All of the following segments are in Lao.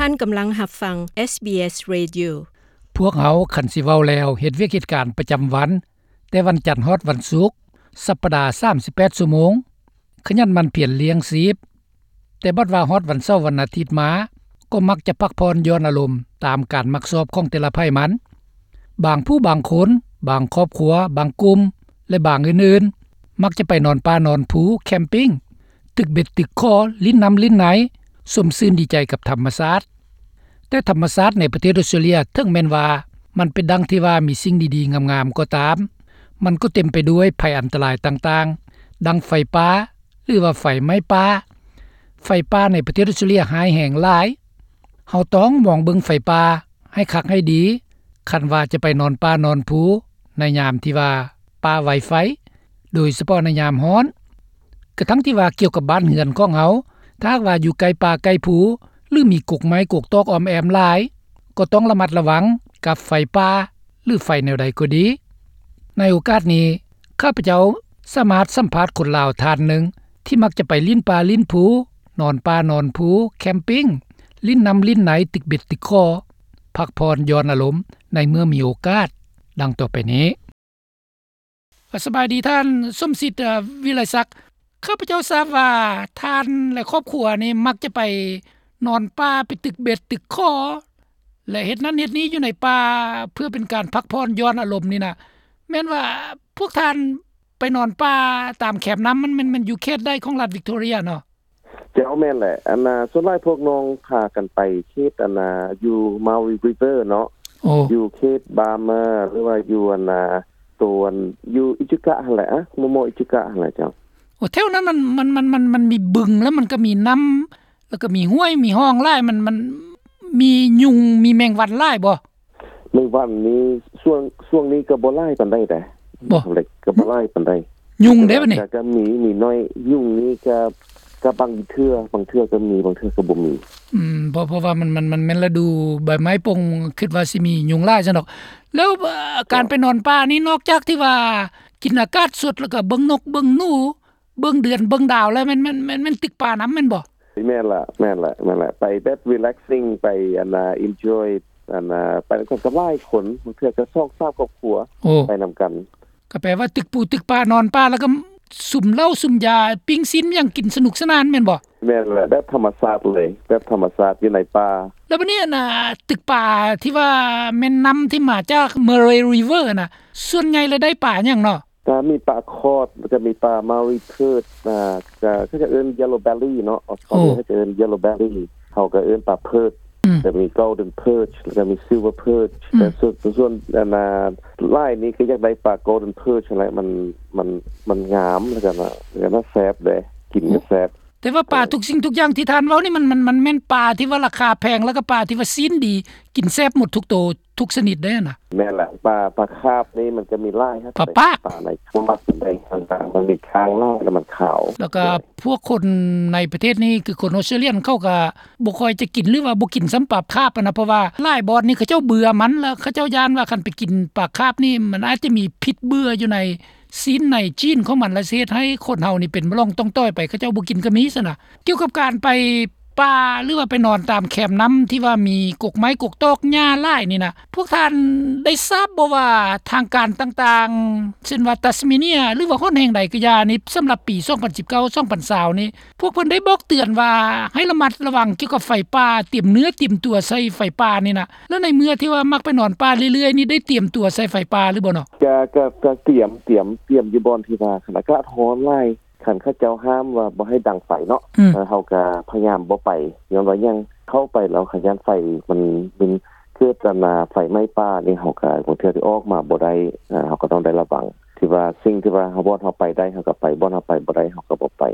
ທ່ານກຳລັງຮັບຟັງ ເອສບີເອສ Radio. ພວກເຮົາ ຄັນຊິເວົ້າແລ້ວ ເຮັດວຽກເຮັດການປະຈຳວັນ ແຕ່ວັນຈັນຮອດວັນສຸກ ສັບປະດາ ສາມສິບແປດຊົ່ວໂມງ, ຂະຫຍັນໝັ່ນພຽນລ້ຽງຊີບ. ແຕ່ບັດວ່າຮອດວັນເສົາວັນອາທິດມາ ກໍມັກຈະພັກຜ່ອນຢ່ອນອາລົມຕາມການມັກຊອບຂອງແຕ່ລະໃຜມັນ. ບາງຜູ້ບາງຄົນ, ບາງຄອບຄົວ, ບາງກຸ່ມ ແລະ ບາງອື່ນໆ ມັກຈະໄປນອນປ່ານອນພູ, ແຄມປິງ, ຕຶກເບັດຕຶກຂໍ, ຫຼິ້ນນ້ຳຫຼິ້ນໃນ, ຊົມຊື່ນດີໃຈກັບທຳມະຊາດ. ແຕ່ທຳມະຊາດໃນປະເທດອອສເຕຣເລຍ ເຖິງແມ່ນວ່າມັນເປັນດັ່ງທີ່ວ່າມີສິ່ງດີໆງາມໆກໍຕາມ, ມັນກໍເຕັມໄປດ້ວຍໄພອັນຕະລາຍຕ່າງໆ ດັ່ງໄຟປ່າ ຫຼືວ່າໄຟໄໝ້ປ່າ. ໄຟປ່າໃນປະເທດອອສເຕຣເລຍຮ້າຍແຮງຫຼາຍ. ເຮົາຕ້ອງມອງເບິ່ງໄຟປ່າໃຫ້ຄັກໃຫ້ດີ ຄັນວ່າຈະໄປນອນປ່ານອນພູໃນຍາມທີ່ວ່າປ່າໄວໄຟ, ໂດຍສະເພາະໃນຍາມຮ້ອນ. ກະທັ່ງທີ່ວ່າກ່ຽວກັບບ້ານເຮືອນຂອງເຮົາ, ຖ້າຫາກວ່າຢູ່ໃກ້ປ່າໃກ້ພູ ຫຼື ມີກົກໄມ້ກົກຕອກອ້ອມແອ້ມຫຼາຍ, ກໍຕ້ອງລະມັດລະວັງກັບໄຟປ່າ ຫຼື ໄຟແນວໃດກໍດີ. ໃນໂອກາດນີ້, ຂ້າພະເຈົ້າສາມາດສຳພາດຄົນລາວທ່ານໜຶ່ງ ທີ່ມັກຈະໄປຫຼິ້ນປ່າຫຼິ້ນພູ, ນອນປ່ານອນພູ, ແຄມປິງ, ຫຼິ້ນນ້ຳຫຼິ້ນໃນ, ຕຶກເບັດຕຶກຂໍ, ພັກຜ່ອນຢ່ອນອາລົມໃນເມື່ອມີໂອກາດ ດັ່ງຕໍ່ໄປນີ້. ສະບາຍດີທ່ານ ສົມສິດ ເອີ ວິໄລສັກ. ຂ້າພະເຈົ້າຊາບວ່າທ່ານ ແລະ ຄອບຄົວນີ້ມັກຈະໄປນອນປ່າ, ໄປຕຶກເບັດຕຶກຂໍ ແລະ ເຮັດນັ້ນເຮັດນີ້ຢູ່ໃນປ່າ ເພື່ອເປັນການພັກຜ່ອນຢ່ອນອາລົມນີ້ນະ. ແມ່ນວ່າພວກທ່ານໄປນອນປ່າຕາມແຄມນ້ຳ ມັນ ມັນ ມັນຢູ່ເຂດໃດຂອງລັດວິກຕໍເຣຍເນາະ? ເຈົ້າ ແມ່ນແຫຼະ. ອັນນ່າ ສ່ວນຫຼາຍພວກນ້ອງພາກັນໄປເຂດ ອັນນ່າ ຢູ່ Maui River ເນາະ. ໂອ້ ຢູ່ເຂດ Bama ຫຼືວ່າຢູ່ ອັນນ່າ ໂຕ ອັນ ຢູ່ Echuca ຫັ້ນແຫຼະ. ອະ ມໍ່ໆ Echuca ຫັ້ນແຫຼະເຈົ້າ. ໂອ້ ແຖວນັ້ນມັນ ມັນ ມັນ ມັນ ມັນມີບຶງ ແລ້ວມັນກໍມີນ້ຳ ແລ້ວກໍມີຫ້ວຍ ມີຮ່ອງຫຼາຍ. ມັນ ມັນມີຍຸງ ມີແມງວັນຫຼາຍບໍ່? ແມງວັນນີ້ ຊ່ວງ ຊ່ວງນີ້ກໍບໍ່ຫຼາຍປານໃດເດ້. ບໍ່ ກໍບໍ່ຫຼາຍປານໃດ. ຍຸງເດ້ບັດນີ້? ກໍ ກໍມີ ມີໜ້ອຍ. ຍຸງນີ້ກໍ ກໍບາງເທື່ອ ບາງເທື່ອກໍມີ ບາງເທື່ອກໍບໍ່ມີ. ອືມ ເພາະ ເພາະວ່າມັນ ມັນ ມັນແມ່ນລະດູໃບໄມ້ປົ່ງ ຄິດວ່າຊິມີຍຸງຫຼາຍຊັ້ນດອກ. ແລ້ວ ເອີ ການໄປນອນປ່ານີ້ ນອກຈາກທີ່ວ່າກິນອາກາດສົດ ແລ້ວກໍເບິ່ງນົກເບິ່ງໜູ ເບິ່ງເດືອນເບິ່ງດາວແລ້ວ ແມ່ນ ແມ່ນ ແມ່ນ ແມ່ນຕຶກປ່ານຳແມ່ນບໍ່? ແມ່ນລະ ແມ່ນລະ ແມ່ນລະ. ໄປແບບ relaxing ໄປ ອັນນ່າ enjoy ອັນນ່າ ໄປນຳກັນກັບຫຼາຍຄົນ ບາງເທື່ອກໍສອງສາມຄອບຄົວ. ໂອ້ ໄປນຳກັນ. ກໍແປວ່າຕຶກປູຕຶກປ່າ ນອນປ່າ ແລ້ວກໍສຸມເຫຼົ້າສຸມຢາ ປີ້ງຊີ້ນຫຍັງກິນສະໜຸກສະໜານແມ່ນບໍ່? ແມ່ນລະ ແບບທຳມະຊາດເລີຍ ແບບທຳມະຊາດຢູ່ໃນປ່າ. ແລ້ວບັດນີ້ ອັນນ່າ ຕຶກປ່າທີ່ວ່າແມ່ນນ້ຳທີ່ມາຈາກ Murray River ນະ ສ່ວນໃຫຍ່ແລ້ວໄດ້ປາຫຍັງເນາະ? ກໍມີປາຄອດ ແລ້ວກໍມີປາ Maui perch ອ່າ ກໍ ເຂົາເຈົ້າເອີ້ນ yellow belly ເນາະ. ເຂົາເຈົ້າເອີ້ນ yellow belly ເຮົາກໍເອີ້ນປາ perch. ອືມ ກໍມີ golden perch ແລ້ວກໍມີ silver perch. ອືມ ແຕ່ສ່ວນ ສ່ວນ ອັນນ່າ ຫຼາຍນີ້ກໍຢາກໄດ້ປາ golden perch ຫັ້ນແຫຼະ. ມັນ ມັນ ມັນງາມ ແລ້ວກໍ ແລ້ວກໍແຊບເດ້ ກິນກໍແຊບ. ແຕ່ວ່າປາທຸກສິ່ງທຸກຢ່າງທີ່ທ່ານເວົ້ານີ້ ມັນ ມັນ ມັນແມ່ນປາທີ່ວ່າລາຄາແພງ ແລ້ວກໍປາທີ່ວ່າຊີ້ນດີ ກິນແຊບໝົດທຸກໂຕ ທຸກຊະນິດເດ້ນະ. ແມ່ນລະ ປາ ປາຄາບນີ້ມັນກໍມີຫຼາຍ ປາປາກ ປາໃນ ບໍ່ມັກປານໃດ ຕ່າງໆ ມັນມີຄ້າງຫຼາຍ ແລ້ວມັນຂາວ. ແລ້ວກໍພວກຄົນໃນປະເທດນີ້ ຄືຄົນອອສເຕຣເລຍ ເຂົາກໍບໍ່ຄ່ອຍຈະກິນ ຫຼືວ່າບໍ່ກິນຊ້ຳປາຄາບຫັ້ນນະ ເພາະວ່າຫຼາຍບ່ອນນີ້ເຂົາເຈົ້າເບື່ອມັນ ແລ້ວເຂົາເຈົ້າຢ້ານວ່າຄັນໄປກິນປາຄາບນີ້ ມັນອາດຈະມີພິດເບື່ອຢູ່ໃນ ຊີ້ນໃນຈີນຂອງມັນ ແລະ ຊິເຮັດໃຫ້ຄົນເຮົານີ້ເປັນໂລກຕ້ອງຕ້ອຍໄປ ເຂົາເຈົ້າບໍ່ກິນກໍມີຊັ້ນນະ. ກ່ຽວກັບການໄປປ່າ ຫຼືວ່າໄປນອນຕາມແຄມນ້ຳທີ່ວ່າມີກົກໄມ້ກົກຕອກຫຍ້າຫຼາຍນີ້ນະ ພວກທ່ານໄດ້ຊາບບໍ່ວ່າທາງການຕ່າງໆ ເຊັ່ນວ່າ Tasmania ຫຼືວ່າຫົນແຫ່ງໃດກໍຢ່ານີ້ ສຳລັບປີສອງພັນສິບເກົ້າ ສອງພັນຊາວນີ້ ພວກເພິ່ນໄດ້ບອກເຕືອນວ່າໃຫ້ລະມັດລະວັງກ່ຽວກັບໄຟປ່າ ຕຽມເນື້ອຕຽມຕົວໃສ່ໄຟປ່ານີ້ນະ? ແລ້ວໃນເມື່ອທີ່ວ່າມັກໄປນອນປ່າເລື້ອຍໆນີ້ ໄດ້ຕຽມຕົວໃສ່ໄຟປ່າຫຼືບໍ່ເນາະ? ກະ ກະ ກະຕຽມ ຕຽມ ຕຽມຢູ່ບ່ອນທີ່ວ່າຄັນອາກາດຮ້ອນຫຼາຍ ຄັນເຂົາເຈົ້າຫ້າມວ່າບໍ່ໃຫ້ດັງໄຟເນາະ ອືມ ເຮົາກະພະຍາຍາມບໍ່ໄປ ຍ້ອນວ່າຫຍັງ ເຂົ້າໄປແລ້ວຄັນຢ້ານໄຟມັນ ມັນເກີດອັນນາ ໄຟໄໝ້ປ່ານີ້ ເຮົາກະບາງເທື່ອຊິອອກມາບໍ່ໄດ້ ເຮົາກະຕ້ອງໄດ້ລະວັງ ທີ່ວ່າສິ່ງທີ່ວ່າເຮົາ ບ່ອນເຮົາໄປໄດ້ເຮົາກະໄປ ບ່ອນເຮົາໄປບໍ່ໄດ້ເຮົາກະບໍ່ໄປ.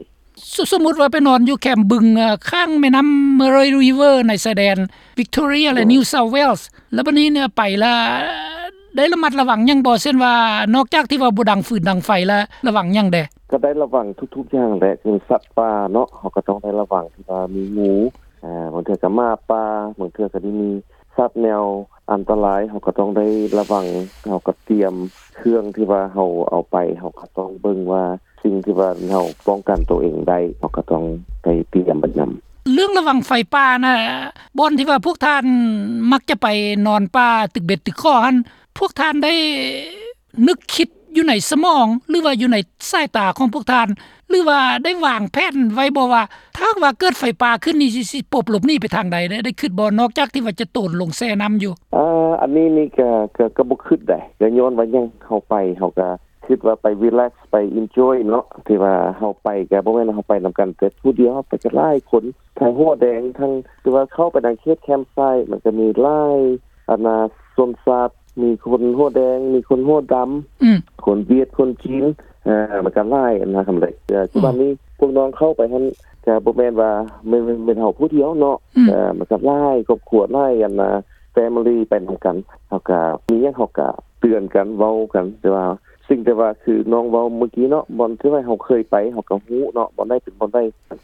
ສົມມຸດວ່າໄປນອນຢູ່ແຄມບຶງ ເອີ ຂ້າງແມ່ນ້ຳ Murray River ໃນຊາຍແດນ Victoria ແລະ New South Wales ແລ້ວບັດນີ້ເນຍ ໄປລະໄດ້ລະມັດລະວັງຫຍັງບໍ່? ເຊັ່ນວ່າ ນອກຈາກທີ່ວ່າບໍ່ດັງຟືນດັງໄຟລະ ລະວັງຫຍັງແດ່? ກະໄດ້ລະວັງທຸກໆຢ່າງແຫຼະ ຄືສັດປ່າເນາະ ເຮົາກະຕ້ອງໄດ້ລະວັງ ທີ່ວ່າມີງູ ບາງເທື່ອກະໝາປ່າ ບາງເທື່ອກະໄດ້ມີສັດແນວອັນຕະລາຍ ເຮົາກະຕ້ອງໄດ້ລະວັງ ເຮົາກະຕຽມເຄື່ອງທີ່ວ່າເຮົາເອົາໄປ ເຮົາກະຕ້ອງເບິ່ງວ່າ ສິ່ງທີ່ວ່າເຮົາປ້ອງກັນໂຕເອງໄດ້ ເຮົາກະຕ້ອງໄດ້ຕຽມໄປນຳ. ເລື່ອງລະວັງໄຟປ່ານະ ບ່ອນທີ່ວ່າພວກທ່ານມັກຈະໄປນອນປ່າຕຶກເບັດຕຶກຂໍຫັ້ນ ພວກທ່ານໄດ້ນຶກຄິດຢູ່ໃນສະໝອງ ຫຼືວ່າຢູ່ໃນສາຍຕາຂອງພວກທ່ານ ຫຼືວ່າໄດ້ວາງແຜນໄວ້ບໍ່ວ່າ ຖ້າຫາກວ່າເກີດໄຟປ່າຂຶ້ນນີ້ ຊິ ຊິປົບຫຼົບໜີໄປທາງໃດ ໄດ້ ໄດ້ຄິດບໍ່ ນອກຈາກທີ່ວ່າຈະໂຕນລົງແຊ່ນ້ຳຢູ່? ເອີ ອັນນີ້ນີ້ກະ ກະ ກະບໍ່ຄິດໃດ ກະຍ້ອນວ່າຫຍັງ ເຮົາໄປ ເຮົາກະຄິດວ່າໄປຣີແລັກ ໄປເອັນຈອຍເນາະ ທີ່ວ່າເຮົາໄປກະບໍ່ແມ່ນເຮົາໄປນຳກັນແຕ່ຜູ້ດຽວ ເຮົາໄປກັນຫຼາຍຄົນ ທັງຫົວແດງ ທັງ ຄືວ່າເຂົ້າໄປໃນເຂດແຄມໄຊ ມັນກະມີຫຼາຍ ອັນນ່າ ຊົນຊາດ ມີຄົນຫົວແດງ ມີຄົນຫົວດຳ ອືມ ຄົນຫວຽດ ຄົນຈີນ ເອີ ມັນກະຫຼາຍ ອັນນ່າ ຄຳເລັກ ເອີ ອືມ ຄືວ່ານີ້ ພວກນ້ອງເຂົ້າໄປຫັ້ນ ກະບໍ່ແມ່ນວ່າ ແມ່ນ ແມ່ນ ແມ່ນເຮົາຜູ້ດຽວເນາະ ອືມ ເອີ ມັນກະຫຼາຍຄອບຄົວ ຫຼາຍ ອັນນ່າ ແຟມິລີ ໄປນຳກັນ ເຮົາກະ ມີຫຍັງເຮົາກະເຕືອນກັນ ເວົ້າກັນ ແຕ່ວ່າ ສິ່ງທີ່ວ່າຄືນ້ອງເວົ້າມື້ກີ້ເນາະ ບ່ອນທີ່ວ່າເຮົາເຄີຍໄປ ເຮົາກະຮູ້ເນາະ ບ່ອນໃດເປັນບ່ອນໃດ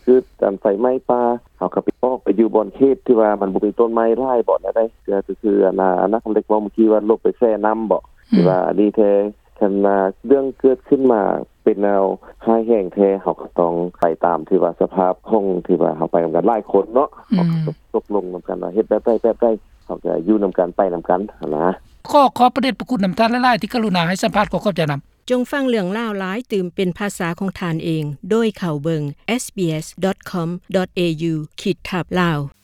ຄືອັນໄຟໄໝ້ປ່າ ເຮົາກະໄປ ອອກໄປຢູ່ບ່ອນເຂດທີ່ວ່າມັນບໍ່ມີຕົ້ນໄມ້ຫຼາຍ ບ່ອນໃດ ຄື ຄື ຄືອັນນ່າ ອັນນ່າ ຄຳເລັກເວົ້າມື້ກີ້ວ່າຫຼົບໄປແຊ່ນ້ຳບໍ ອືມ ທີ່ວ່າອັນນີ້ແທ້ ຄັນວ່າເລື່ອງເກີດຂຶ້ນມາເປັນແນວຮ້າຍແຮງແທ້ ເຮົາກະຕ້ອງໄປຕາມທີ່ວ່າສະພາບຂອງທີ່ວ່າເຮົາໄປນຳກັນຫຼາຍຄົນເນາະ ອືມ ເຮົາກະຕົກລົງນຳກັນວ່າເຮັດແບບໃດແບບໃດ ເຮົາກະຢູ່ນຳກັນ ໄປນຳກັນຫັ້ນນະ. ຂໍຂອບພະເດດພະຄຸນນຳທ່ານຫຼາຍໆ ທີ່ກະລຸນາໃຫ້ສຳພາດ ຂໍຂອບໃຈນຳ. ຈົ່ງຟັງເລື່ອງລາວຫຼາຍຕື່ມເປັນພາສາຂອງທ່ານເອງ ໂດຍເຂົ້າເບິ່ງ SBS .com.au ຂີດທັບ Lao.